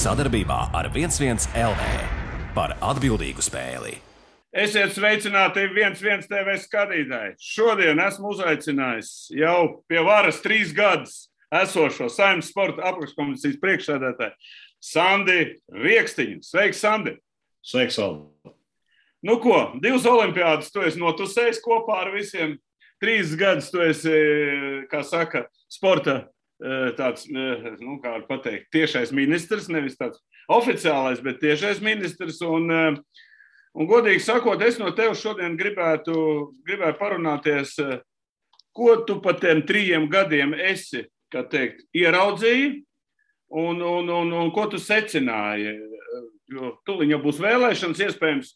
Sadarbībā ar 11 LV par atbildīgu spēli. Esiet sveicināti 11 TV skatītāji. Šodien esmu uzaicinājis jau pie varas 3 gadus esošo Saeimas sporta apakškomisijas priekšsēdētāju Sandi Riekstiņu. Sveiks, Sandi! Sveiks, Valdi! Nu ko, 2 olimpiādas tu esi notusējis kopā ar visiem. 3 gadus tu esi, kā saka, sporta tāds, nu, kā var pateikt, tiešais ministrs, nevis tāds oficiālais, bet tiešais ministrs. Un godīgi sakot, es no tevis šodien gribētu parunāties, ko tu pa tiem 3 gadiem esi, kā teikt, ieraudzīji un ko tu secināji. Jo tuliņ jau būs vēlēšanas, iespējams,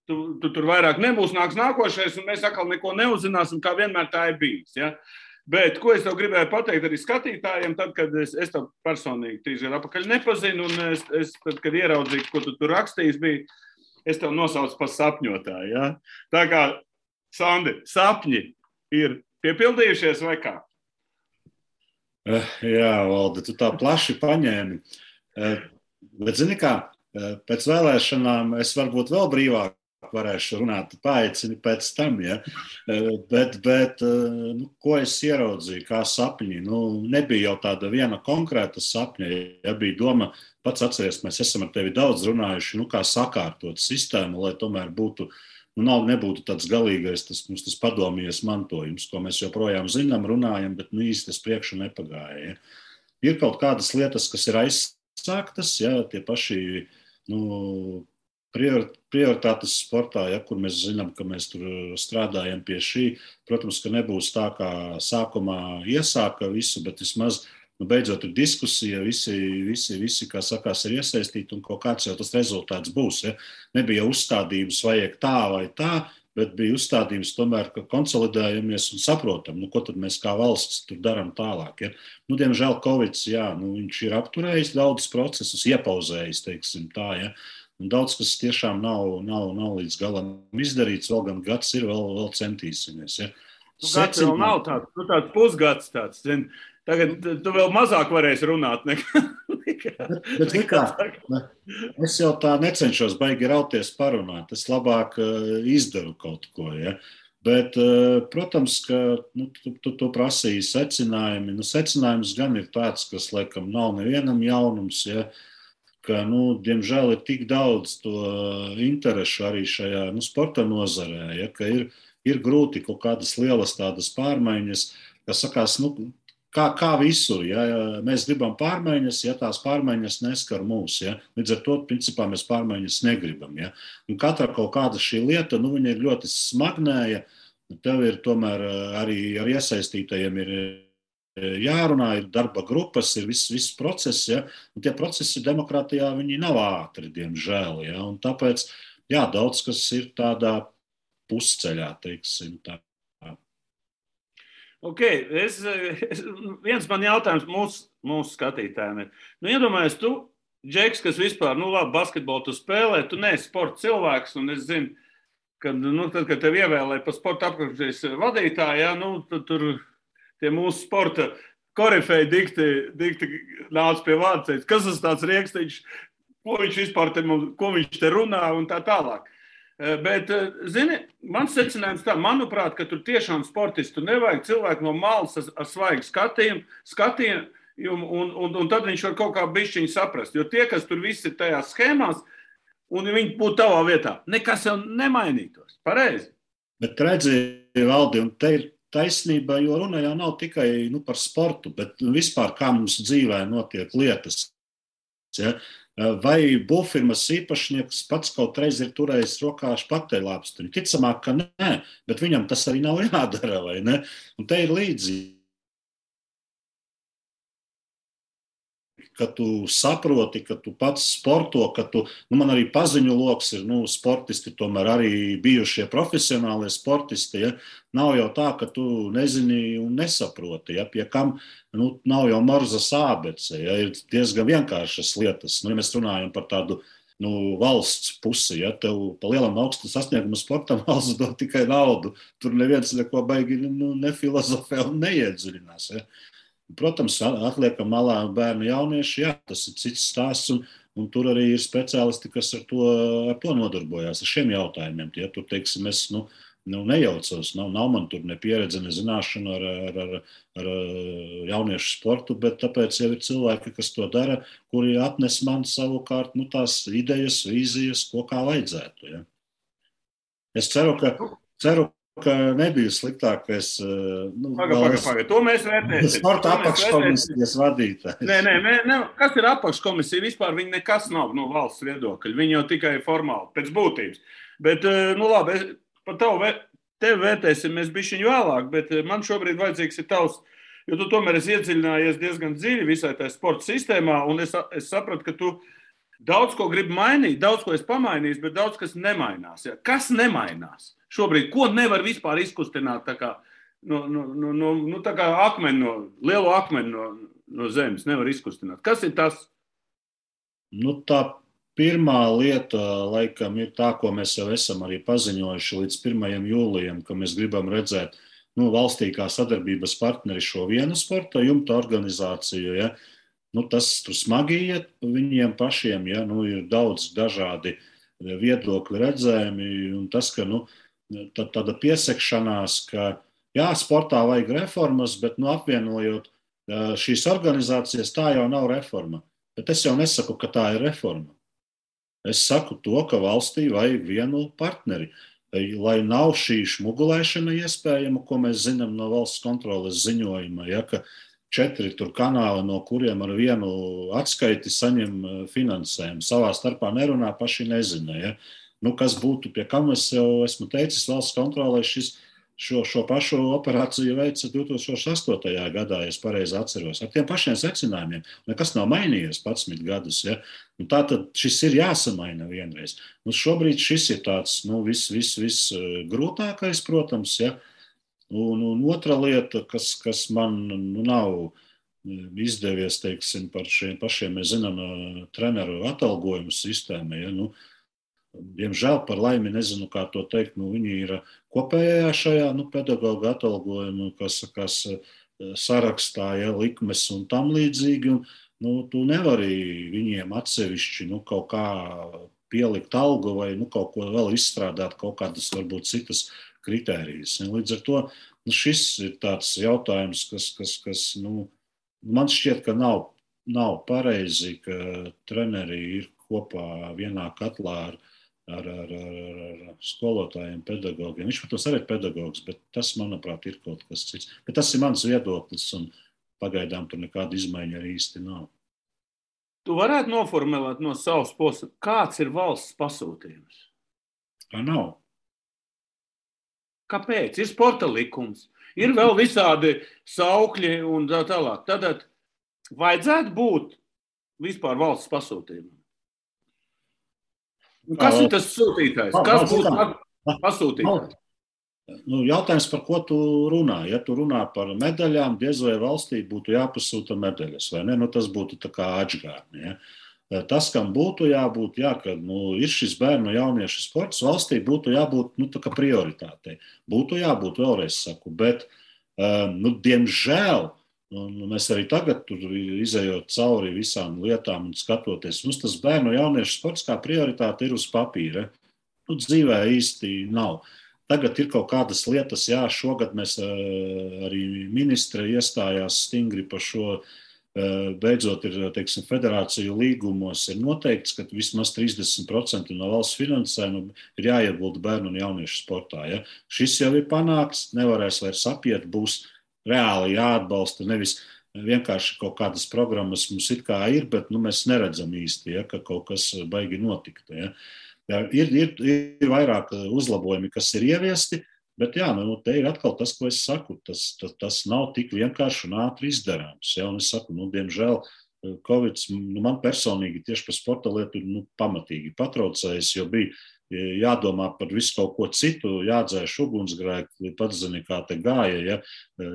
tu tur vairāk nebūs, nāks nākošais, un mēs atkal neko neuzzināsim, kā vienmēr tā ir bijis. Ja? Bet ko es tev gribēju pateikt arī skatītājiem, tad, kad es tev personīgi 3 gadu atpakaļ nepazinu, un es tad, kad ieraudzīju, ko tu tur rakstījis biji, es tev nosaucu par sapņotāju. Ja? Tā kā, Sandi, sapņi ir piepildījušies vai kā? Jā, Valdi, tu tā plaši paņēmi. Bet zini kā, pēc vēlēšanām es varbūt vēl brīvāk varēšu runāt, paaicini pēc tam, ja? Bet nu, ko es ieraudzīju, kā sapņi? Nu, nebija jau tāda viena konkrēta sapņa, ja bija doma, pats atceries, mēs esam ar tevi daudz runājuši, nu, kā sakārtot sistēmu, lai tomēr būtu, nu, nebūtu tāds galīgais, tas padomjies mantojums, ko mēs joprojām zinām, runājam, bet nu, īsti tas priekšu nepagāja. Ja? Ir kaut kādas lietas, kas ir aizsāktas, ja? Tie paši, nu, prioritātes sportā, ja, kur mēs zinām, ka mēs tur strādājam pie šī. Protams, ka nebūs tā, kā sākumā iesāka visu, bet vismaz, nu, beidzot ir diskusija, visi, kā sakās, ir iesaistīti un kaut kāds jau tas rezultāts būs. Ja. Nebija uzstādījums vajag tā vai tā, bet bija uzstādījums tomēr, ka konsolidējamies un saprotam, nu, ko tad mēs kā valsts tur darām tālāk. Ja. Nu, diemžēl Covids, jā, nu, viņš ir apturējis daudz procesus, iepauzējis, teiksim tā, ja. Un daudz, kas tiešām nav līdz galam izdarīts, vēl gan gads ir, vēl centīsimies. Ja. Gads vēl nav tāds, nu tāds pusgads tāds, zin. Tagad tu vēl mazāk varēsi runāt nekā. Es jau tā necenšos baigi rauties parunāt, es labāk izdaru kaut ko, ja. Bet, protams, ka nu, tu prasīji secinājumi. Nu, secinājums gan ir tāds, kas, laikam, nav nevienam jaunums, ja. Ka, nu, diemžēl ir tik daudz to interešu arī šajā sporta nozarē, ja, ka ir grūti kaut kādas lielas tādas pārmaiņas, kas sakās, nu, kā visur, ja, mēs gribam pārmaiņas, ja tās pārmaiņas neskar mūs, ja, līdz ar to, principā, mēs pārmaiņas negribam, ja, un katra kaut kāda šī lieta, nu, viņa ir ļoti smagnēja, tev ir tomēr arī ar iesaistītajiem ir jārunā, ir darba grupas, ir viss process, ja? Un tie procesi demokrātijā, viņi nav ātri, diemžēl, ja? Un tāpēc, jā, daudz kas ir tādā pusceļā, teiksim tā. Ok, viens man jautājums mūsu skatītājiem ir. Nu, iedomājies, tu, Džeks, kas vispār, nu labi, basketbolu tu spēlē, tu neesi sporta cilvēks, un es zinu, ka, nu, tad, kad tev ievēlēja par sporta apakškomisijas vadītāju, ja, nu, tad tur tie mūsu sporta korifeji dikti nāca pie vārda, teica, kas tas tāds Riekstiņš, ko viņš vispār ko viņš te runā un tā tālāk. Bet, zini, mans secinājums tā, manuprāt, ka tur tiešām sportistu nevajag cilvēku no malas ar svaigu skatījumu un tad viņš var kaut kā bišķiņu saprast. Jo tie, kas tur visi ir tajās schēmās, un viņi būtu tavā vietā, nekas jau nemainītos. Pareizi. Bet redzi, Valdi, un te ir taisnība, jo runa jau nav tikai par sportu, bet vispār kā mums dzīvē notiek lietas. Ja? Vai būvfirmas īpašnieks pats kaut reiz ir turējis rokā špakteļlāpstiņu? Ticamāk, ka nē, bet viņam tas arī nav jādara, vai ne? Un te ir līdzīgi. Ka tu saproti, ka tu pats sporto, ka tu, nu man arī paziņu loks ir, nu, sportisti, tomēr arī bijušie profesionālie sportisti, ja, nav jau tā, ka tu nezini un nesaproti, ja, pie kam, nu, nav jau Morzas ābece, ja, ir diezgan vienkāršas lietas, nu, ja mēs runājam par tādu, nu, valsts pusi, ja, tev pa lielam augstu sasniegumu sportam valsts dod tikai naudu, tur neviens neko baigi, nu, nefilozofē un neiedziļinās, ja. Protams, atliekam malā bērnu jaunieši, jā, tas ir cits stāsts, un tur arī ir speciālisti, kas ar to nodarbojās, ar šiem jautājumiem. Ja tur, teiksim, es nejaucos, nav man tur ne pieredze, ne zināšana ar jauniešu sportu, bet tāpēc jau ir cilvēki, kas to dara, kuri atnes man savukārt tās idejas, vīzijas, kā vajadzētu. Ja. Es ceru, ka nebija sliktāk, ka es Pagaid. To mēs vērtēsim. Sporta apakškomisijas vadītājs. Nē. Kas ir apakškomisija? Vispār viņi nekas nav no valsts viedokļa. Viņi jau tikai formāli, pēc būtības. Bet, labi, par tevi vērtēsim mēs bišķiņu vēlāk, bet man šobrīd vajadzīgs ir tavs, jo tu tomēr esi iedziļinājies diezgan dziļi visai tajā sporta sistēmā, un es sapratu, ka tu daudz ko gribi mainīt, daudz ko esi pamainījis, bet daudz kas nemainās. Ja? Kas nemainās? Šobrīd, ko nevar vispār izkustināt tā kā, tā kā lielo akmeni no zemes nevar izkustināt? Kas ir tas? Tā pirmā lieta, laikam, ir tā, ko mēs jau esam arī paziņojuši līdz 1. jūlijam, ka mēs gribam redzēt valstī kā sadarbības partneri šo vienu sporta jumta organizāciju. Ja? Tas tur smagi iet viņiem pašiem, ja? Ir daudz dažādi viedokļi redzējumi, un tas, ka tāda piesekšanās, ka jā, sportā vajag reformas, bet apvienojot šīs organizācijas, tā jau nav reforma. Bet es jau nesaku, ka tā ir reforma. Es saku to, ka valstī vajag vienu partneri, lai nav šī šmugulēšana iespējama, ko mēs zinām no valsts kontroles ziņojuma, ja, ka 4 tur kanāli, no kuriem ar vienu atskaiti saņem finansējumu. Savā starpā nerunā, paši nezina. Ja. Kas būtu, pie kam es jau esmu teicis, valsts kontrolē šo pašu operāciju veica 2008. gadā, ja es pareizi atceros, ar tiem pašiem secinājumiem. Nekas nav mainījies 11 gadus. Ja? Tātad šis ir jāsamaina vienreiz. Šobrīd šis ir tāds viss grūtākais, protams. Ja? Un otra lieta, kas man nav izdevies, teiksim, par šiem pašiem, mēs zinām, treneru atalgojumu sistēmu. Ja? Diemžēl, par laimi, nezinu, kā to teikt, viņi ir kopējā šajā pedagoga atalgojuma, kas sarakstā, ja, likmes un tam līdzīgi. Tu nevari viņiem atsevišķi kaut kā pielikt algu vai kaut ko vēl izstrādāt, kaut kādas varbūt citas kritērijas. Līdz ar to šis ir tāds jautājums, kas man šķiet, ka nav pareizi, ka treneri ir kopā vienā katlā ar skolotājiem, pedagogiem. Viņš, protams, arī ir pedagogs, bet tas, manuprāt, ir kaut kas cits. Bet tas ir mans viedoklis, un pagaidām tur nekāda izmaiņa arī īsti nav. Tu varētu noformulēt no savas puses, kāds ir valsts pasūtījums? Kā nav. Kāpēc? Ir sporta likums, ir vēl visādi saukļi un tā tālāk. Tad vajadzētu būt vispār valsts pasūtījumam. Kas ir tas sūtītājs? Kas būtu pasūtītājs? Jautājums, par ko tu runā? Ja tu runā par medaļām, diez vai valstī būtu jāpasūta medaļas, vai ne? Tas būtu tā kā atžgārni. Ja? Tas, kam būtu jābūt, kad ir šis bērnu jauniešu sports, valstī būtu jābūt tā kā prioritātei. Būtu jābūt, vēlreiz saku, bet, diemžēl, mēs arī tagad, izejot cauri visām lietām un skatoties, mums tas bērnu jauniešu sports kā prioritāte ir uz papīra. Dzīvē īsti nav. Tagad ir kaut kādas lietas, šogad mēs arī ministre iestājās stingri par šo. Beidzot ir, teiksim, federāciju līgumos ir noteikts, ka vismaz 30% no valsts finansējuma ir jāiegulda bērnu un jauniešu sportā. Ja? Šis jau ir panākts, nevarēs vairs apiet, būs reāli jāatbalsta, nevis vienkārši kaut kādas programmas mums it kā ir, bet mēs neredzam īsti, ja, ka kaut kas baigi notikt. Ja. Ir vairāk uzlabojumi, kas ir ieviesti, bet te ir atkal tas, ko es saku, tas nav tik vienkārši un ātri izdarāms. Ja, un es saku, diemžēl, Covid man personīgi tieši par sporta lietu pamatīgi patraucējis, jo bija jādomā par visu kaut ko citu, jādzēš ugunsgrēki, pats zini, kā te gāja, ja,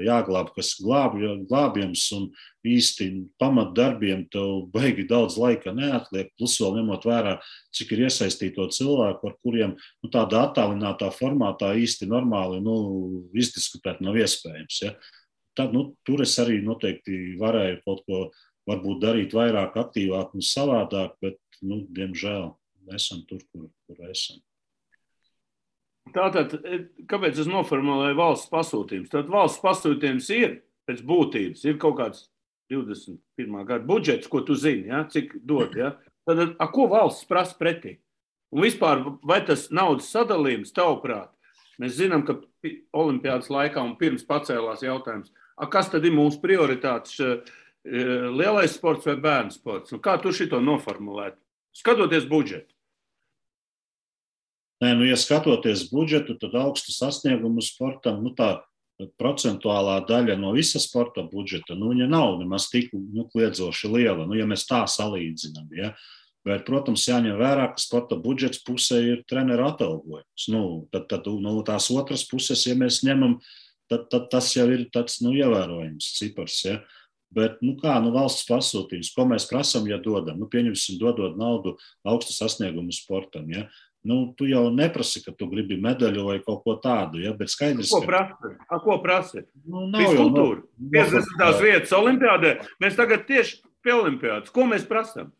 jāglāb, kas glābjams, un īsti pamatdarbiem tev baigi daudz laika neatliek, plus vēl ņemot vērā, cik ir iesaistīto cilvēku, ar kuriem tādā attālinātā formātā īsti normāli izdiskutēt nav iespējams. Ja. Tad, tur es arī noteikti varēju kaut ko varbūt darīt vairāk, aktīvāk un savādāk, bet, diemžēl, esam tur, kur esam. Tātad, kāpēc es noformulēju valsts pasūtījums? Tad valsts pasūtījums ir pēc būtības, ir kaut kāds 21. gada budžets, ko tu zini, ja? Cik dod. Ja? Tad, ko valsts prasa pretī? Un vispār, vai tas naudas sadalījums, tavuprāt, mēs zinām, ka olimpiādas laikā un pirms pacēlās jautājums, kas tad ir mūsu prioritātes, lielais sports vai bērnu sports? Un kā tu šito noformulēt? Skatoties budžetu. Nē, ja skatoties budžetu, tad augstu sasniegumu sportam, tā procentuālā daļa no visa sporta budžeta, viņa nav nemaz tik kliedzoši liela, ja mēs tā salīdzinām, ja. Bet, protams, jāņem vērā, ka sporta budžets pusē ir treneru atalgojums. Tad no tās otras puses, ja mēs ņemam, tad tas jau ir tāds ievērojams cipars. Ja? Bet valsts pasūtījums, ko mēs prasam, ja dodam? Pieņemsim, dodot naudu augstu sasniegumu sportam. Ja? Tu jau neprasi, ka tu gribi medaļu vai kaut ko tādu. Ja? Bet skaidrs, ko prasi? Fiskultūra. 50. vietas olimpiādē. Mēs tagad tieši pie olimpiādas. Ko mēs prasam?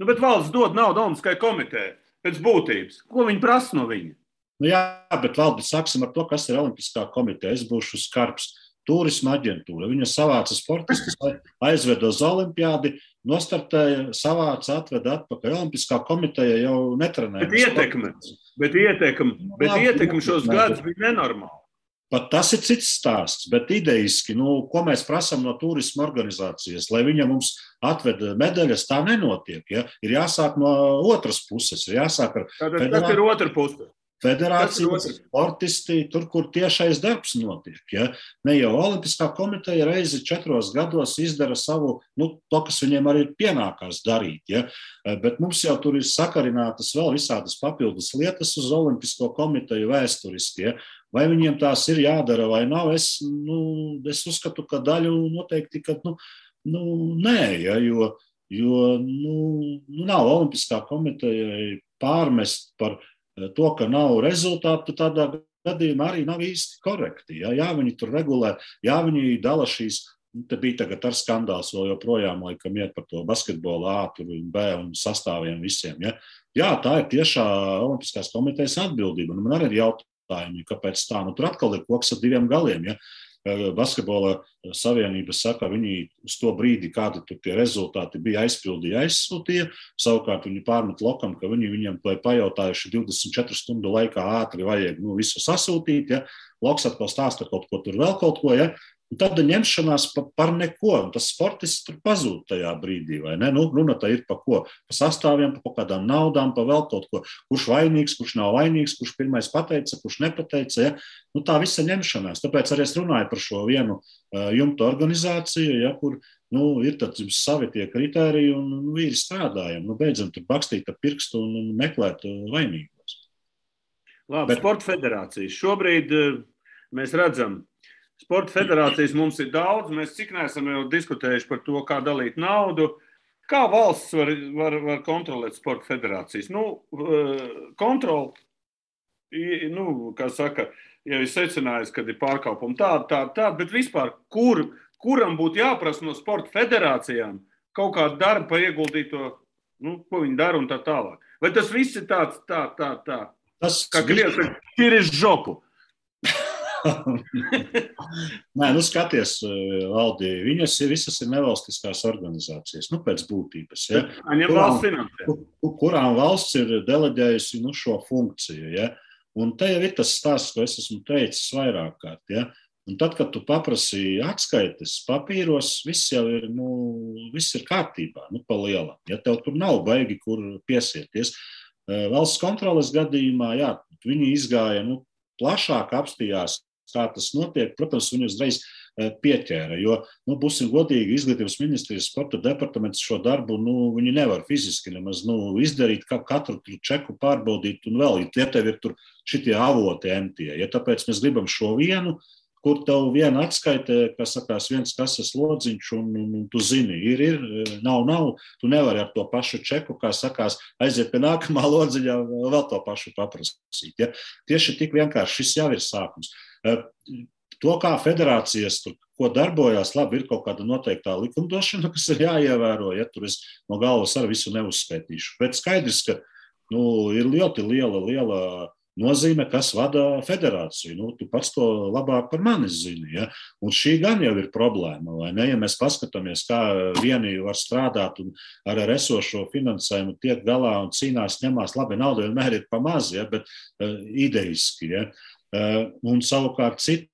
Bet valsts dod naudu Olimpiskajai komitejai pēc būtības. Ko viņi prasa no viņa? Jā, bet Valdi, sāksim ar to, kas ir Olimpiskā komiteja. Es būšu skarbs. Turisma aģentūra. Viņa savāca sportistus, aizveda uz olimpiādi, nostartēja, savāca, atveda atpakaļ. Olimpiskā komiteja jau netrenēja. Bet ietekme šos gadus bija nenormāli. Pat tas ir cits stāsts, bet idejiski, ko mēs prasam no turisma organizācijas, lai viņa mums atveda medaļas, tā nenotiek. Ja? Ir jāsāk no otras puses. Ir jāsāk ar tas ir otra puse. Federācijas sportisti, tur, kur tiešais darbs notiek. Ja? Ne jau Olimpiskā komiteja reizi 4 gados izdara savu, to, kas viņiem arī pienākās darīt. Ja? Bet mums jau tur ir sakarinātas vēl visādas papildus lietas uz Olimpisko komiteju vēsturiski. Ja? Vai viņiem tās ir jādara vai nav? Es uzskatu, ka daļu noteikti, ka nē, ja? jo nav Olimpiskā komitejai pārmest par to, ka nav rezultātu, tādā gadījumā arī nav īsti korekti. Ja? Viņi tur regulē, viņi dala šīs, te bija tagad ar skandāls vēl joprojām, laikam iet par to basketbolu A, B un sastāviem visiem. Ja? Tā ir tiešā Olimpiskās komitejas atbildība. Man arī ir jautājumi, kāpēc tā. Tur atkal ir koks ar 2 galiem. Ja? Basketbola savienība saka, viņi uz to brīdi, kādi tur tie rezultāti bija aizsūtīja. Savukārt viņi pārmet lokam, ka viņiem pajautājuši 24 stundu laikā ātri vajag visu sasūtīt. Ja? Loks atkal stāsta kaut ko tur vēl kaut ko. Ja? Un tad ņemšanās par neko. Un tas sportists tur pazūd tajā brīdī. Vai ne? Runa tā ir par ko? Par sastāviem, par kādām naudām, par vēl kaut ko. Kurš vainīgs, kurš nav vainīgs, kurš pirmais pateica, kurš nepateica. Ja? Tā visa ņemšanās. Tāpēc arī es runāju par šo vienu jumta organizāciju, ja, kur ir savi tie kritēriji un vīri strādājam. Beidzam tur bakstīt ar pirkstu un meklēt vainīgos. Labi, Sporta federācijas. Šobrīd mēs redzam, Sporta federācijas mums ir daudz. Mēs cik neesam jau diskutējuši par to, kā dalīt naudu. Kā valsts var kontrolēt Sporta federācijas? Kontroli, kā saka, jau ir secinājis, ka ir pārkāpumi tāda, bet vispār, kuram būtu jāprasa no Sporta federācijām kaut kādu darbu par ieguldīto, ko viņi dara un tā tālāk. Vai tas viss ir tāds, tā? Kā Krievs ir iz žopu. Nē, skaties, Valdi, viņas visas ir nevalstiskās organizācijas, pēc būtības. Ja? Kurām valsts ir deleģējusi šo funkciju. Ja? Un te jau ir tas stāsts, ko es esmu teicis vairāk kārt. Ja? Un tad, kad tu paprasi atskaites papīros, viss jau ir, viss ir kārtībā, pa lielam. Ja tev tur nav baigi, kur piesieties. Valsts kontroles gadījumā, jā, viņi izgāja, plašāk apstījās, kā tas notiek. Protams, viņi uzreiz pieķēra, jo, būsim godīgi, Izglītības ministrijas sporta departaments šo darbu, viņi nevar fiziski nemaz, izdarīt, kā katru čeku pārbaudīt un vēl, ja tev ir tur šitie avoti emtie. Ja tāpēc mēs gribam šo vienu, kur tev viena atskaite, kas sakās viens kases lodziņš, un tu zini, ir, nav, tu nevari ar to pašu čeku, kā sakās, aiziet pie nākamā lodziņā, vēl to pašu paprasīt. Ja? Tieši tik vienkārši šis jau ir sākums. To, kā federācijas tur, ko darbojās, labi, ir kaut kāda noteiktā likumdošana, kas ir jāievēro, ja tur es no galvas ar visu neuzskaitīšu. Bet skaidrs, ka ir ļoti liela nozīme, kas vada federāciju. Tu pats to labāk par mani zini. Ja? Un šī gan jau ir problēma, vai ne? Ja mēs paskatāmies, kā vieni var strādāt un ar esošo finansējumu tiek galā un cīnās, ņemās, labi, nauda vienmēr ir pa maz, ja? Bet idejiski. Ja? Un savukārt citi,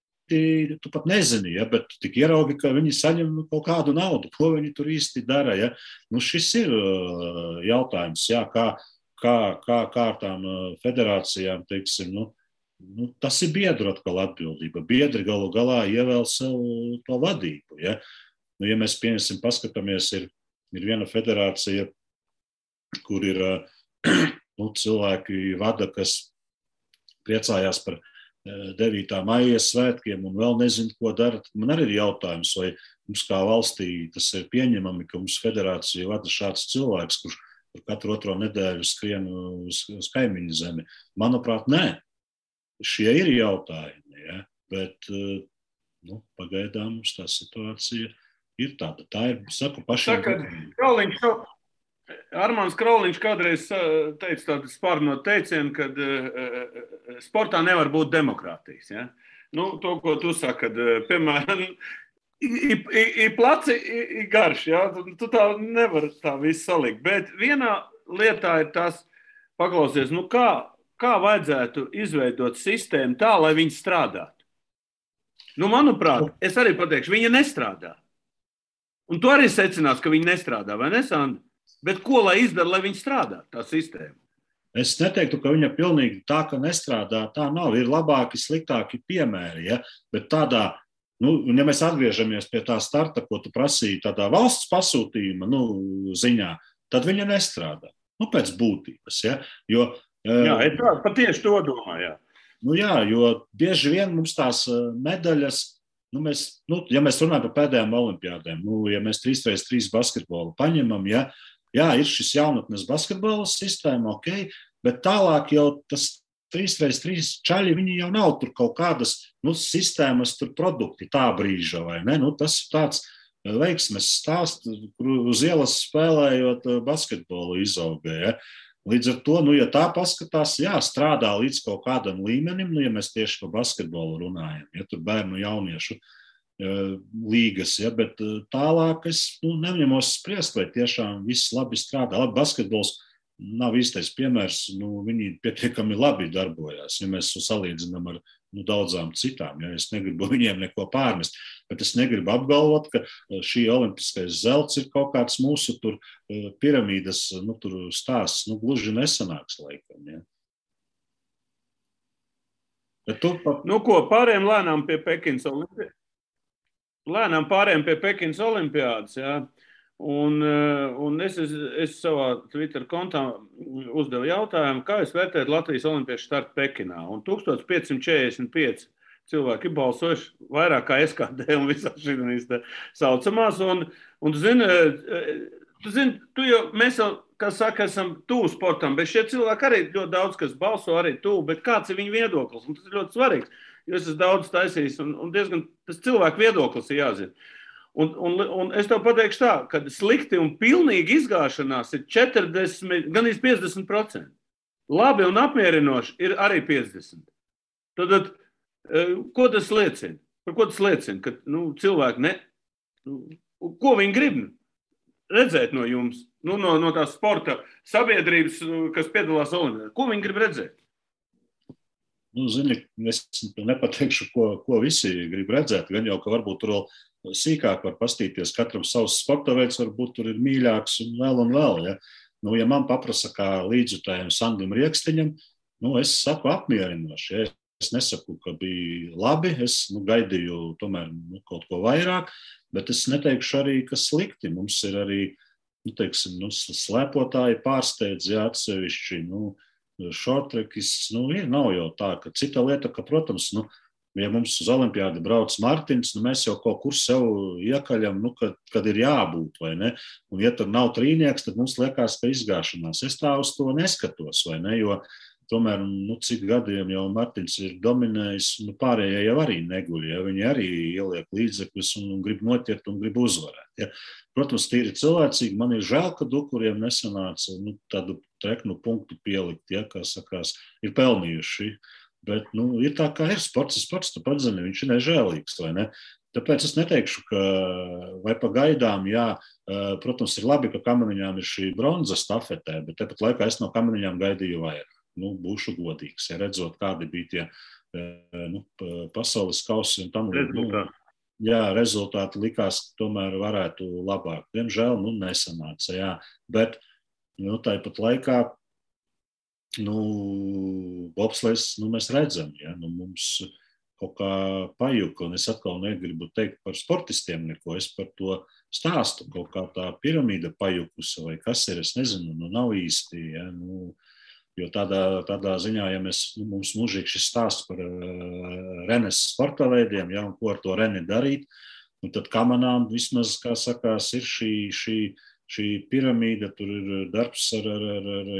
tu pat nezini, ja? Bet tik ieraugi, ka viņi saņem kaut kādu naudu, ko viņi tur īsti dara. Ja? Šis ir jautājums, ja? Kā tām federācijām, teiksim, tas ir biedru atkal atbildība. Biedri galu galā ievēl sev to vadību. Ja, ja mēs pieņemsim, paskatāmies, ir viena federācija, kur ir cilvēki vada, kas priecājās par 9. maija svētkiem un vēl nezinu, ko dara. Man arī ir jautājums, vai mums kā valstī tas ir pieņemami, ka mums federācija vada šāds cilvēks, kurš katru otro nedēļu skrien uz kaimiņu zemi. Manuprāt, nē. Šie ir jautājumi, ja? Bet pagaidām mums tā situācija ir tāda. Tā ir, saku, pašiem. Armāns Krauliņš kādreiz teica tādu spārno teicienu, kad sportā nevar būt demokrātijas. Ja? To, ko tu saki, kad, piemēram, I placi, I garš, ja? Tu tā nevar tā visu salikt. Bet vienā lietā ir tas, paklausies, kā vajadzētu izveidot sistēmu tā, lai viņi strādātu. Manuprāt, es arī pateikšu, viņa nestrādā. Un tu arī secinās, ka viņa nestrādā, vai ne, Sandra? Bet ko lai izdara, lai viņa strādā, tā sistēma? Es neteiktu, ka viņa pilnīgi tā, ka nestrādā, tā nav. Ir labāki, sliktāki piemēri, ja? Bet tādā, ja mēs atgriežamies pie tā starta, ko tu prasīji tādā valsts pasūtījuma ziņā, tad viņa nestrādā. Pēc būtības. Ja? Jo, jā, es patieši to domāju. Jā, jo bieži vien mums tās medaļas, ja mēs runājam par pēdējām olimpiādēm, ja mēs 3x3 basketbolu paņemam, jā, ir šis jaunatnes basketbola sistēma, ok, bet tālāk jau tas 3x3 čaļi, viņi jau nav tur kaut kādas sistēmas, tur produkti tā brīža, vai ne? Tas ir tāds veiksmes stāsts, kur uz ielas spēlējot basketbolu izauga. Ja? Līdz ar to, ja tā paskatās, strādā līdz kaut kādam līmenim, ja mēs tieši par basketbolu runājam, ja tur bērnu jauniešu līgas, ja? Bet tālāk es neņemos spriest, vai tiešām viss labi strādā. Labi, basketbols nav īstais piemērs, viņi pietiekami labi darbojās, ja mēs salīdzinām ar daudzām citām. Ja? Es negribu viņiem neko pārmest, bet es negribu apgalvot, ka šī olimpiskais zelts ir kaut kāds mūsu tur piramīdas tur stāsts, gluži nesanāks laikam. Ja? Bet pārējiem lēnām pie Pekinas olimpiādas, ja? Un es savā Twitter kontā uzdevu jautājumu, kā jūs vērtējat Latvijas olimpiešu startu Pekinā. Un 1545 cilvēki balsojuši vairāk kā SKD un visās šīs saucamās. Un tu zini, mēs jau, kā saka, esam tuvu sportam, bet šie cilvēki arī ļoti daudz, kas balso arī tuvu, bet kāds ir viņu viedoklis? Un tas ir ļoti svarīgs, jo es esmu daudz taisījis un diezgan tas cilvēku viedoklis ir jāzina. Un es tev pateikšu tā, ka slikti un pilnīgi izgāšanās ir 40, gan 50%. Labi un apmierinoši ir arī 50%. Tad, ko tas liecina? Par ko tas liecina? Ka cilvēki ko viņi grib redzēt no jums? No tās sporta sabiedrības, kas piedalās olimpiādē. Ko viņi grib redzēt? Zini, es nepateikšu, ko visi grib redzēt. Gan jau, ka varbūt tur vēl sīkāk var pastīties, katram savs sporta veids varbūt tur ir mīļāks un vēl. Ja, ja man paprasa kā līdzjutējiem Sandim Riekstiņam, es saku apmierinoši. Ja. Es nesaku, ka bija labi, es gaidīju tomēr kaut ko vairāk, bet es neteikšu arī, ka slikti. Mums ir arī, slēpotāji pārsteidz, ja atsevišķi, šortrekis, nav jau tā, ka cita lieta, ka, protams, ja mums uz olimpiādi brauc Martins, mēs jau kaut kur sev iekaļam, kad ir jābūt, vai ne? Un ja tur nav trīnieks, tad mums liekas, ka izgāšanās. Es tā uz to neskatos, vai ne? Jo tomēr, cik gadiem jau Martins ir dominējis, pārējie jau arī neguļ, ja viņi arī ieliek līdzekļus un grib noķert un grib uzvarēt. Ja. Protams, tīri cilvēcīgi, man ir žēl, ka Dukuriem nesanāca tādu treknu punktu pielikt, ja, kā sakās, ir pelnījuši. Bet, ir tā, kā ir sports, tu pats zini, viņš ir nežēlīgs, vai ne? Tāpēc es neteikšu, ka vai pagaidām, jā, protams, ir labi, ka Kameniņām ir šī bronza stafetē, bet tāpat laikā es no Kameniņām gaidīju vairāk. Būšu godīgs, ja redzot, kādi bija tie pasaules kausi un tam rezultāti likās, ka tomēr varētu labāk. Diemžēl, nesanāca, jā, bet, tāpat laikā, bobslejs, mēs redzam, ja, mums kaut kā pajuka, un es atkal negribu teikt par sportistiem neko, es par to stāstu, kaut kā tā piramīda pajukusa, vai kas ir, es nezinu, nav īsti, ja, jo tādā ziņā, ja mums mūžīgi šis stāsts par Renes sporta veidiem, ja, un ko ar to Reni darīt, tad Kamanām vismaz, kā sakās, ir šī piramīda, tur ir darbs ar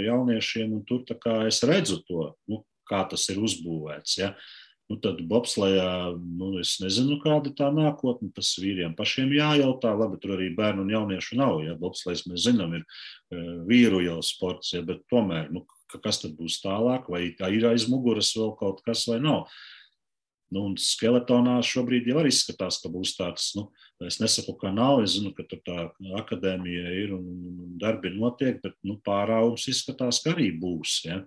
jauniešiem, un tur tā kā es redzu to, kā tas ir uzbūvēts, ja. Tad bobslejā, es nezinu, kāda tā nākotne, tas vīriem pašiem jājautā, labi, tur arī bērnu un jauniešu nav, ja, bobslejs mēs zinām, ir vīru jau sports, ja, bet tomēr, kas tad būs tālāk, vai tā ir aiz muguras vēl kaut kas vai nav. Un skeletonā šobrīd jau arī izskatās, ka būs tāds, es nesaku, ka nav, es zinu, ka tur tā akadēmija ir un darbi notiek, bet, pārāvums izskatās, ka arī būs, ja.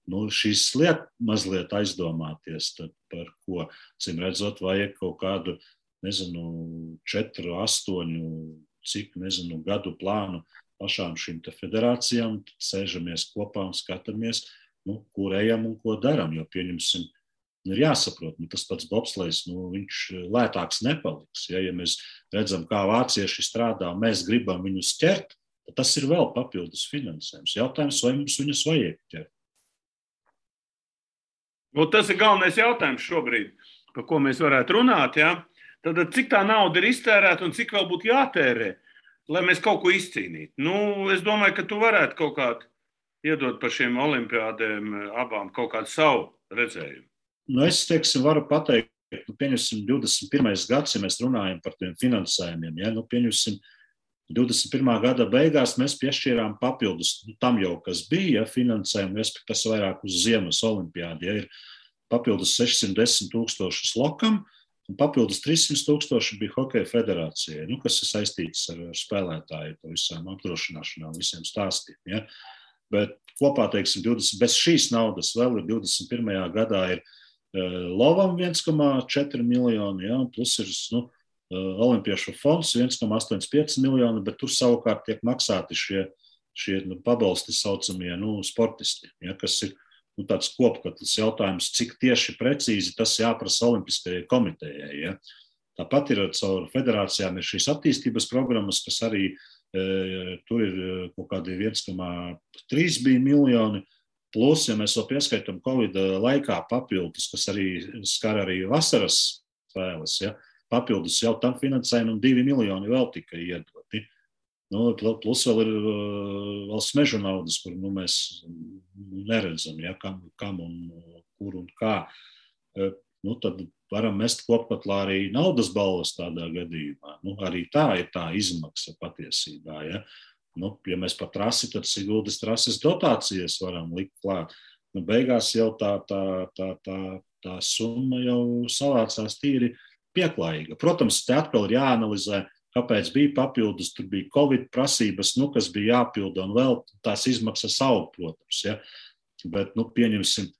Šīs liek mazliet aizdomāties, tad par ko, cim redzot, vajag kaut kādu, 4, 8, cik, gadu plānu pašām šīm te federācijām, tad sēžamies kopā un skatāmies, kur ejam un ko daram, jo pieņemsim, ir jāsaprot, tas pats bobslejs, viņš lētāks nepaliks, ja mēs redzam, kā vācieši strādā, mēs gribam viņus ķert, tad tas ir vēl papildus finansējums. Jautājums, vai mums viņus vajag ķert? Tas ir galvenais jautājums šobrīd, par ko mēs varētu runāt. Ja? Tad cik tā nauda ir iztērēta un cik vēl būtu jātērē, lai mēs kaut ko izcīnītu? Es domāju, ka tu varētu kaut kādu iedot par šiem olimpiādēm abām kaut kādu savu redzējumu. Es, varu pateikt, pieņemsim 21. gads, ja mēs runājam par tiem finansējumiem, ja? Pieņemsim 21. gada beigās mēs piešķīrām papildus tam jau, kas bija finansējumi, kas vairāk uz ziemas olimpiādi, ja ir papildus 610 000 lokam, un papildus 300 000 bija hokeja federācijai, kas ir saistīts ar spēlētāju, to visām apdrošināšanām, visiem stāstiem. Ja? Bet kopā, bez šīs naudas vēl ir 21. gadā ir Lovam 1,4 miljoni, ja? Plus ir, Olimpiešu fonds 1,85 miljoni, bet tur savukārt tiek maksāti šie pabalsti saucamie sportisti, ja, kas ir tāds kopkatls jautājums, cik tieši precīzi tas jāprasa Olimpiskajai komitejai. Ja. Tāpat ir caur federācijām ir šīs attīstības programmas, kas arī tur ir kaut kādi 1,3 bija miljoni, plus, ja mēs vēl pieskaitam Covid laikā papildus, kas arī skar arī vasaras spēles, ja, papildus jau tam finansējumu un 2 miljoni vēl tika iedoti. Plus vēl ir valsts mežu naudas, kur mēs neredzam, ja, kam un kur un kā. Tad varam mest kopkatlā arī naudas balvas tādā gadījumā. Arī tā ir tā izmaksa patiesībā. Ja, ja mēs par trasi, tad Siguldas trases dotācijas varam likt klāt. Beigās jau tā summa jau savācās tīri pieklājīga. Protams, te atkal ir jāanalizē, kāpēc bija papildus, tur bija Covid prasības, kas bija jāpilda, un vēl tās izmaksas aug, protams. Ja? Bet, pieņemsim,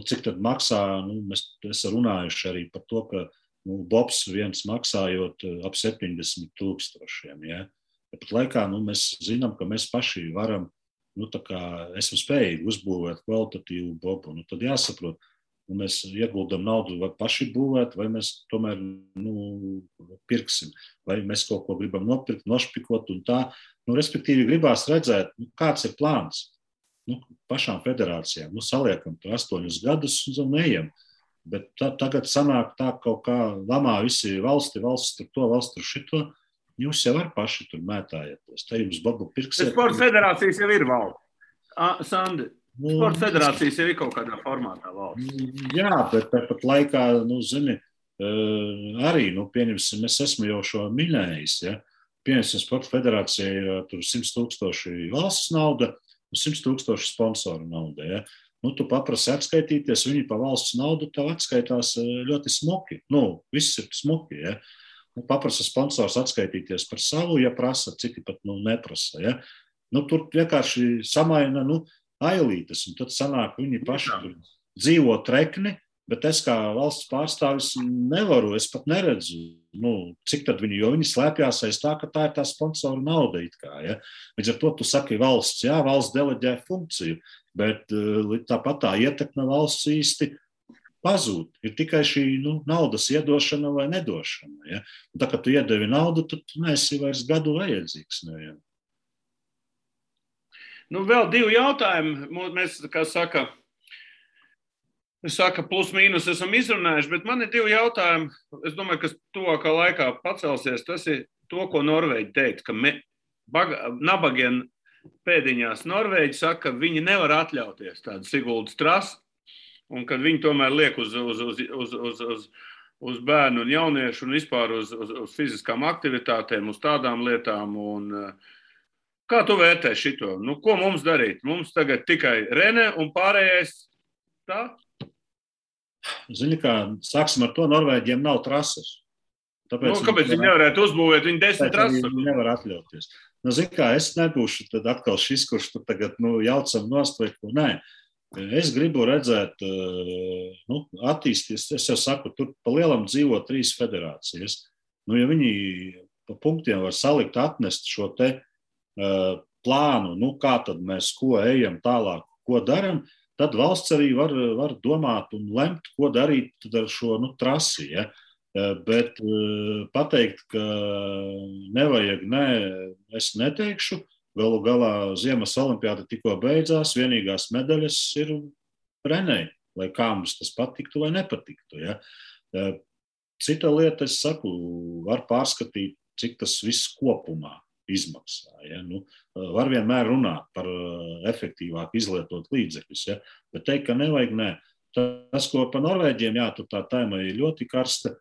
cik tad maksā, mēs esam runājuši arī par to, ka bobs viens maksājot ap 70 000. Ja? Bet laikā mēs zinām, ka mēs paši varam, esam spējīgi uzbūvēt kvalitatīvu bobu. Tad jāsaprot, mēs ieguldam naudu vai paši būvēt, vai mēs tomēr pirksim, vai mēs kaut ko gribam nopirkt, nošpikot un tā. Respektīvi gribās redzēt, kāds ir plāns. Pašām federācijām. Saliekam tur 8 gadus un ejam. Bet tagad sanāk tā kaut kā lamā visi valsts tur to, valsts tur šito. Jūs jau var paši tur mētājieties. Te jums babu pirksiet. Sporta federācijas jau ir valde. Sandi, Sporta federācijas ir kaut kādā formātā valsts. Jā, bet tāpat laikā, zini, arī, pieņemsim, es esmu jau šo minējis, ja? Pieņemsim, Sporta federācija ir tur 100,000 valsts nauda un 100,000 sponsoru nauda, ja? Tu paprasi atskaitīties, viņi pa valsts naudu tev atskaitās ļoti smuki. Viss ir smuki, ja? Paprasa sponsors atskaitīties par savu, ja prasa, citi pat neprasa, ja? Tur vienkārši samaina, ailītes, un tad sanāk, viņi paši tur dzīvo trekni, bet es kā valsts pārstāvis nevaru, es pat neredzu, cik tad viņi, jo viņi slēpjās aiz tā, ka tā ir tā sponsoru nauda it kā, ja. Līdz ar to tu saki valsts, jā, valsts deleģē funkciju, bet tāpat tā ietekme valsts īsti pazūd. Ir tikai šī, naudas iedošana vai nedošana, ja. Un tā, kad tu iedevi naudu, tad tu neesi vairs gadu vajadzīgs, ne, ja. Vēl 2 jautājumi. Mēs, kā saka, plus mīnus esam izrunājuši, bet man ir 2 jautājumi. Es domāju, kas tuvākā laikā pacelsies. Tas ir to, ko Norvēģi teikt, ka nabagiem pēdiņās Norvēģi saka, ka viņi nevar atļauties tādu Siguldas trasi, un kad viņi tomēr liek uz bērnu un jauniešu un vispār uz fiziskām aktivitātēm, uz tādām lietām. Un, kā tu vērtē šito? Ko mums darīt? Mums tagad tikai Rene un pārējais tā? Zini kā, sāksim ar to, Norvēģiem nav trases. Kāpēc viņi nevarētu uzbūvēt? Viņi 10 trases. Viņi nevar atļauties. Zini kā, es nebūšu tad atkal šis, kurš tu tagad jaucam nost vai ko. Nē, es gribu redzēt, attīsties, es jau saku, tur pa lielam dzīvo 3 federācijas. Ja viņi pa punktiem var salikt, atnest šo te plānu, kā tad mēs ko ejam tālāk, ko daram, tad valsts arī var domāt un lemt, ko darīt ar šo trasi. Ja? Bet pateikt, ka nevajag, es neteikšu. Galu galā Ziemas olimpiāda tikko beidzās, vienīgās medaļas ir Renei, lai kā mums tas patiktu vai nepatiktu. Ja? Cita lieta, es saku, var pārskatīt, cik tas viss kopumā izmaksā. Ja? Var vienmēr runāt par efektīvāk izlietot līdzekļus, ja? Bet teikt, ka nevajag, nē. Tas, ko pa Norvēģiem, jā, tur tā tēma ir ļoti karsta.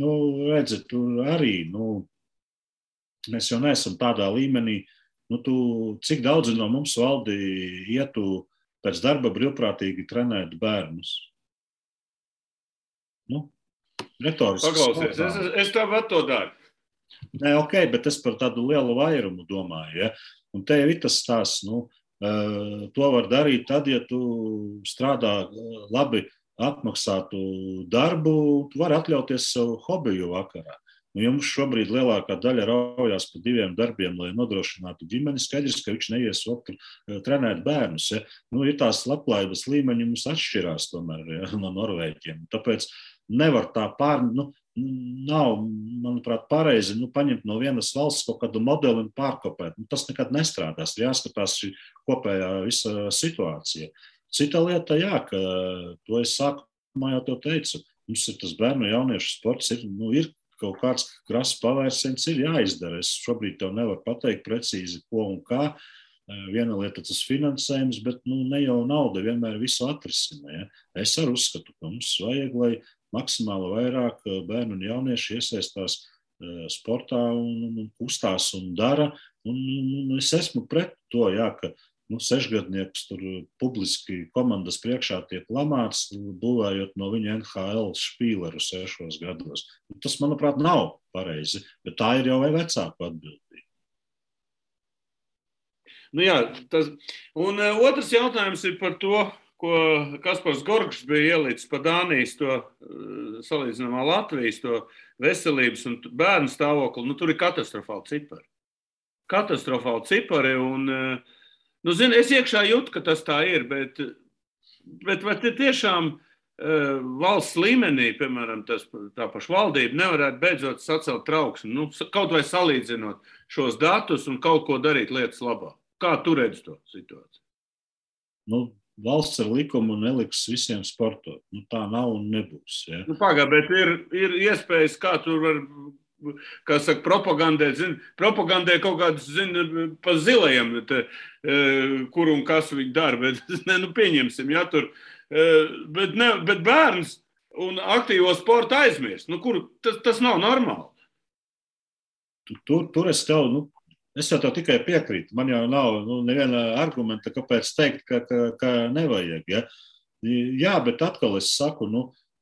Redzat, tur arī, mēs jau neesam tādā līmenī, cik daudzi no mums valdi ietu pēc darba brīvprātīgi trenēt bērnus. Retoriski. Paklausies, es tāpat to daru. Nē, ok, bet es par tādu lielu vairumu domāju, ja? Un te jau ir tas stāsts, to var darīt tad, ja tu strādā labi apmaksātu darbu, tu vari atļauties savu hobiju vakarā. Jums šobrīd lielākā daļa raujās pa 2 darbiem, lai nodrošinātu ģimeni. Skaidrs, ka viņš neies trenēt bērnus. Ja? Ir tās labklājības līmeņi mums atšķirās tomēr, ja, no Norvēģiem. Tāpēc nevar tā nav, manuprāt, pareizi paņemt no vienas valsts kaut kādu modeli un pārkopēt. Tas nekad nestrādās. Jāskatās šī kopējā visa situācija. Cita lieta, jā, ka to es sākumā jau to teicu. Mums ir tas bērnu jauniešu sports, ir kaut kāds krasa pavērsiens, ir jāizdara. Es šobrīd tev nevaru pateikt precīzi, ko un kā. Viena lieta tas finansējums, bet ne jau nauda vienmēr visu atrisina. Ja? Es arī uzskatu, ka mums vajag, lai maksimāli vairāk bērnu un jaunieši iesaistās sportā un kustās un dara. Un es esmu pret to, jā, ka 6-gadnieks tur publiski komandas priekšā tiek lamāts, būvējot no viņa NHL špīleru 6 gados. Tas, manuprāt, nav pareizi, bet tā ir jau vai vecāku atbildība. Jā, un otrs jautājums ir par to, ko Kaspars Gorgšs bija ielicis pa Dānijas to salīdzinājumā Latvijas to veselības un bērnu stāvokli. Tur ir katastrofāli cipari. Katastrofāli cipari un, zini, es iekšā jūtu, ka tas tā ir, bet vai tiešām valsts līmenī, piemēram, tā paša valdība nevarētu beidzot sacelt trauksmi, kaut vai salīdzinot šos datus un kaut ko darīt lietas labā. Kā tu redzi to situāciju? Valsts ar likumu neliks visiem sportot. Tā nav un nebūs. Ja? Pagā, bet ir iespējas, kā tur var kā saka, propagandē kaut kādus, pa zilajiem, kur un kas viņi dara, bet, pieņemsim, ja tur, bet bērns un aktīvo sportu aizmirst, tas nav normāli. Tur es tev, es jau tev tikai piekrītu, man jau nav neviena argumenta, kāpēc teikt, ka nevajag, ja? Jā, bet atkal es saku,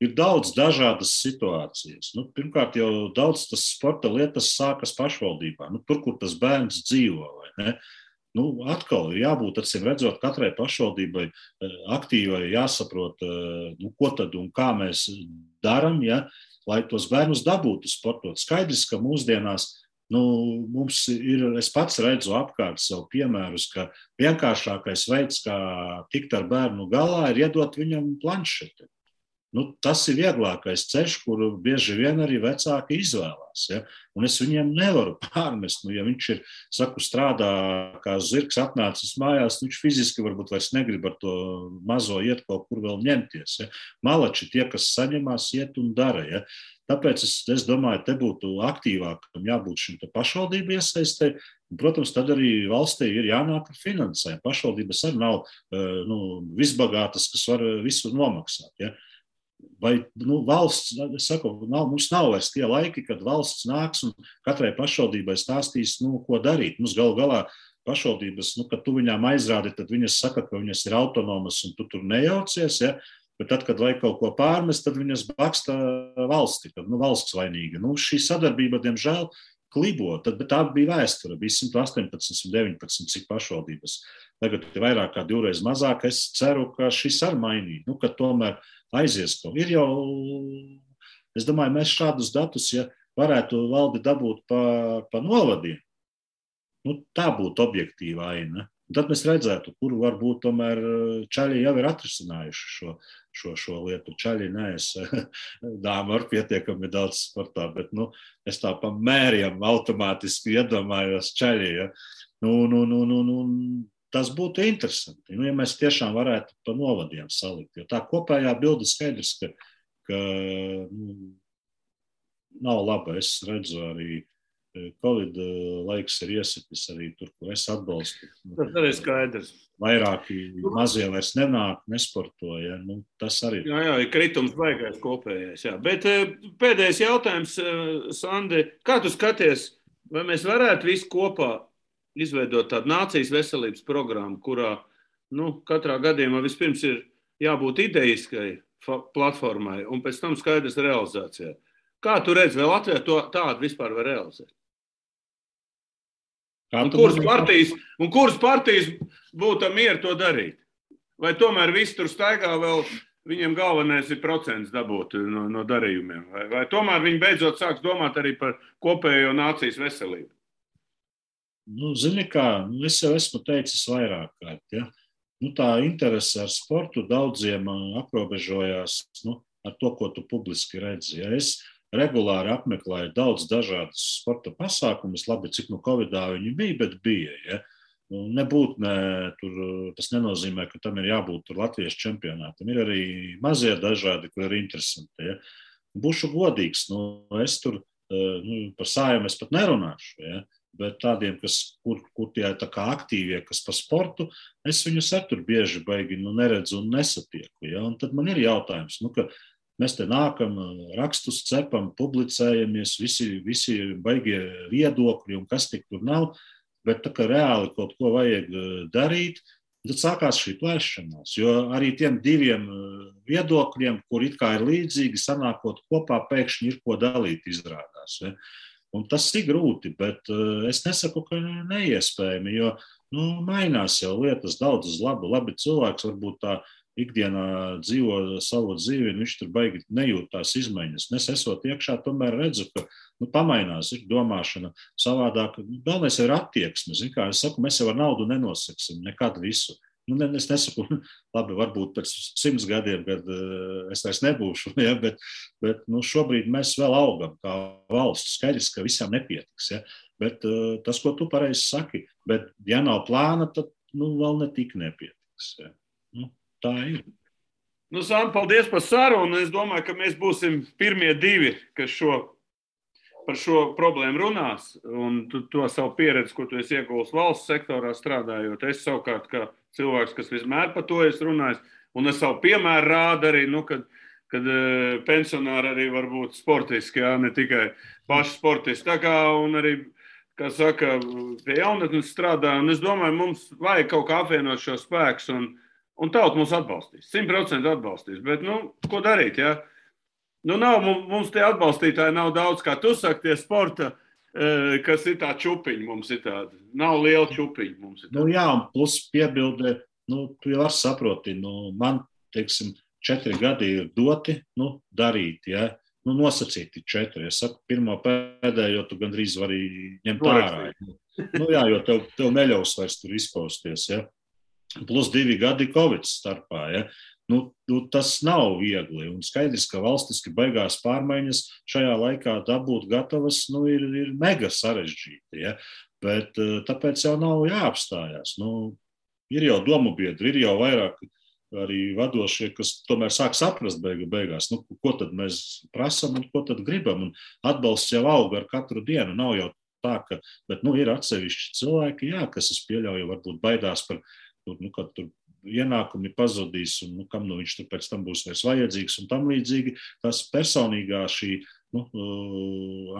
ir daudz dažādas situācijas. Pirmkārt, jau daudz tas sporta lietas sākas pašvaldībā, tur, kur tas bērns dzīvo, vai ne? Atkal ir jābūt, acīm redzot, katrai pašvaldībai aktīvai jāsaprot, ko tad un kā mēs daram, ja, lai tos bērnus dabūtu sportot. Skaidrs, ka mūsdienās mums ir, es pats redzu apkārt sev piemērus, ka vienkāršākais veids, kā tikt ar bērnu galā, ir iedot viņam planšeti. Tas ir vieglākais ceļš, kuru bieži vien arī vecāki izvēlās. Ja? Un es viņiem nevaru pārmest. Ja viņš ir, strādā kā zirgs atnācis mājās, viņš fiziski varbūt vairs negrib ar to mazo iet kaut kur vēl ņemties. Ja? Malači tie, kas saņemās, iet un dara. Ja? Tāpēc es domāju, te būtu aktīvākam jābūt šim pašvaldību iesaistē. Protams, tad arī valstī ir jānāk ar finansējumu. Pašvaldības arī nav visbagātas, kas var visu nomaksāt. Ja? Vai valsts, es saku, mums nav vairs tie laiki, kad valsts nāks un katrai pašvaldībai stāstīs, ko darīt. Mums galu galā pašvaldības, kad tu viņām aizrādi, tad viņas saka, ka viņas ir autonomas un tu tur nejaucies, ja? Bet tad, kad vajag kaut ko pārmest, tad viņas baksta valsti, tad valsts vainīga. Šī sadarbība, diemžēl, klibo, bet tā bija vēsture, bija 118, 119, cik pašvaldības. Tagad ir vairāk kā 2 reizes mazāk, es ceru, ka šis ar mainīt, ka tomēr aizies kaut. Ir jau, es domāju, mēs šādus datus, ja varētu valdi dabūt pa novadiem, tā būtu objektīva aina. Tad mēs redzētu, kur varbūt tomēr čaļi jau ir atrisinājuši šo lietu. Čaļi nees, dāma ar pietiekami daudz sportā, bet es tā pa mēriem automātiski iedomājos čaļi. Ja? Tas būtu interesanti, ja mēs tiešām varētu pa novadiem salikt. Jo tā kopējā bilde skaidrs, ka nav laba. Es redzu arī Covid laiks ir iesitis arī tur, kur es atbalstu. Tas arī skaidrs. Vairāki mazie vairs nenāk, nesportoja. Tas arī. Jā, ir kritums baigais kopējais. Jā. Bet pēdējais jautājums, Sandi, kā tu skaties, vai mēs varētu visi kopā izveidot tādu nācijas veselības programmu, kurā katrā gadījumā vispirms ir jābūt idejiskai platformai un pēc tam skaidrs realizācijai. Kā tu redzi, vai Latvijā tādu vispār var realizēt? Un kuras partijas būtu mieru to darīt? Vai tomēr visi tur staigā vēl, viņiem galvenais ir procents dabūt no darījumiem? Vai tomēr viņi beidzot sāks domāt arī par kopējo nācijas veselību? Zini kā, es jau esmu teicis vairāk kārt, ja? Tā interese ar sportu daudziem aprobežojās ar to, ko tu publiski redzi. Ja? Es regulāri apmeklēju daudz dažādas sporta pasākumus, labi, cik Covidā viņi bija, bet bija. Ja? Tas nenozīmē, ka tam ir jābūt Latvijas čempionātam. Ir arī mazie dažādi, kur ir interesanti. Ja? Būšu godīgs, es tur par Saeimu es pat nerunāšu. Ja? Bet tādiem, kur tie tā kā aktīvie, kas pa sportu, es viņus tur bieži baigi neredzu un nesatieku. Ja? Un tad man ir jautājums, ka mēs te nākam, rakstus cepam, publicējamies, visi baigie viedokļi un kas tik tur nav, bet tā kā reāli kaut ko vajag darīt, tad sākās šī plēšanās, jo arī tiem diviem viedokļiem, kur it kā ir līdzīgi, sanākot kopā, pēkšņi ir ko dalīt izrādās. Ja? Un tas ir grūti, bet es nesaku, ka neiespējami, jo mainās jau lietas daudzas labi cilvēks varbūt tā ikdienā dzīvo savu dzīvi, un viņš tur baigi nejūt tās izmaiņas. Es esot iekšā, tomēr redzu, ka pamainās, ir domāšana savādāk. Galvenais ir attieksme. Kā es saku, mēs jau ar naudu nenosaksim nekad visu. Es nesaku, labi, varbūt pēc 100 gadiem, kad es vairs nebūšu, ja, bet šobrīd mēs vēl augam kā valsts. Skaidrs, ka visam nepietiks. Ja. Bet tas, ko tu pareizi saki, bet ja nav plāna, tad vēl netik nepietiks. Ja. Tā ir. Sāni, paldies par sarunu. Es domāju, ka mēs būsim pirmie divi, kas šo par šo problēmu runās, un tu to savu pieredzi, ko tu esi ieguvis valsts sektorā strādājot, es savukārt kā cilvēks, kas vismēr par to es runājis, un es savu piemēru rādu arī, kad pensionāri arī var būt sportiski, jā, ne tikai paši sportisti. Tā kā, un arī, kā saka, pie jaunatnes strādā, un es domāju, mums vajag kaut kā apvienot šo spēkus, un tauta mūs atbalstīs, 100% atbalstīs, bet, ko darīt, jā? Nav, mums tie atbalstītāji nav daudz, kā tu saki, tie sporta, kas ir tā čupiņi mums ir tāda. Nav liela čupiņi mums ir tāda. Jā, un plus piebildē, tu jau var saproti, man, teiksim, 4 gadi ir doti, darīt, ja? Nosacīti 4. Es saku, pirmo pēdējo tu gandrīz vari ņemt ārā. Jā, jo tev neļaus vairs tur izpausties, ja? Plus 2 gadi Covid starpā, ja? Tas nav viegli, un skaidrs, ka valstiski beigās pārmaiņas šajā laikā dabūt gatavas, ir mega sarežģīti, ja? Bet tāpēc jau nav jāapstājās. Ir jau domu biedri, ir jau vairāk arī vadošie, kas tomēr sāk saprast beigās, ko tad mēs prasam un ko tad gribam, un atbalsts jau aug ar katru dienu, nav jau tā, ka, bet, ir atsevišķi cilvēki, jā, kas es pieļauju, varbūt baidās par, kad tur ienākumi pazudīs, un kam viņš tur pēc tam būs vairs vajadzīgs, un tam līdzīgi tas personīgā šī,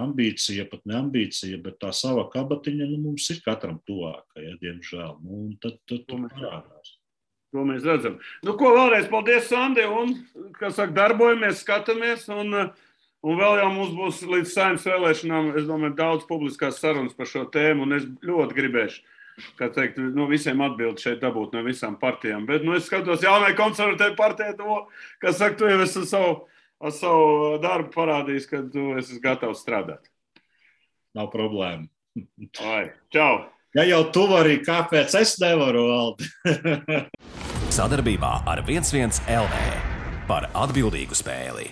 ambīcija, pat ne ambīcija, bet tā sava kabatiņa, mums ir katram tuvāka, ja, diemžēl, un tad parādās. To mēs redzam. Ko vēlreiz paldies, Sandi, un, kā saka, darbojamies, skatāmies, un vēl jau mums būs līdz Saeimas vēlēšanām, es domāju, daudz publiskās sarunas par šo tēmu, un es ļoti gribēšu, kā teikt, visiem atbildi šeit dabūt no visām partijām, bet, es skatos jaunai konservatīvai partijai, kā saka, tu jau esi ar savu darbu parādījis, ka tu esi gatavs strādāt. Nav problēma. Čau! Ja jau tu vari, kāpēc es nevaru, Valdi? Sadarbībā ar 11 LV par atbildīgu spēli.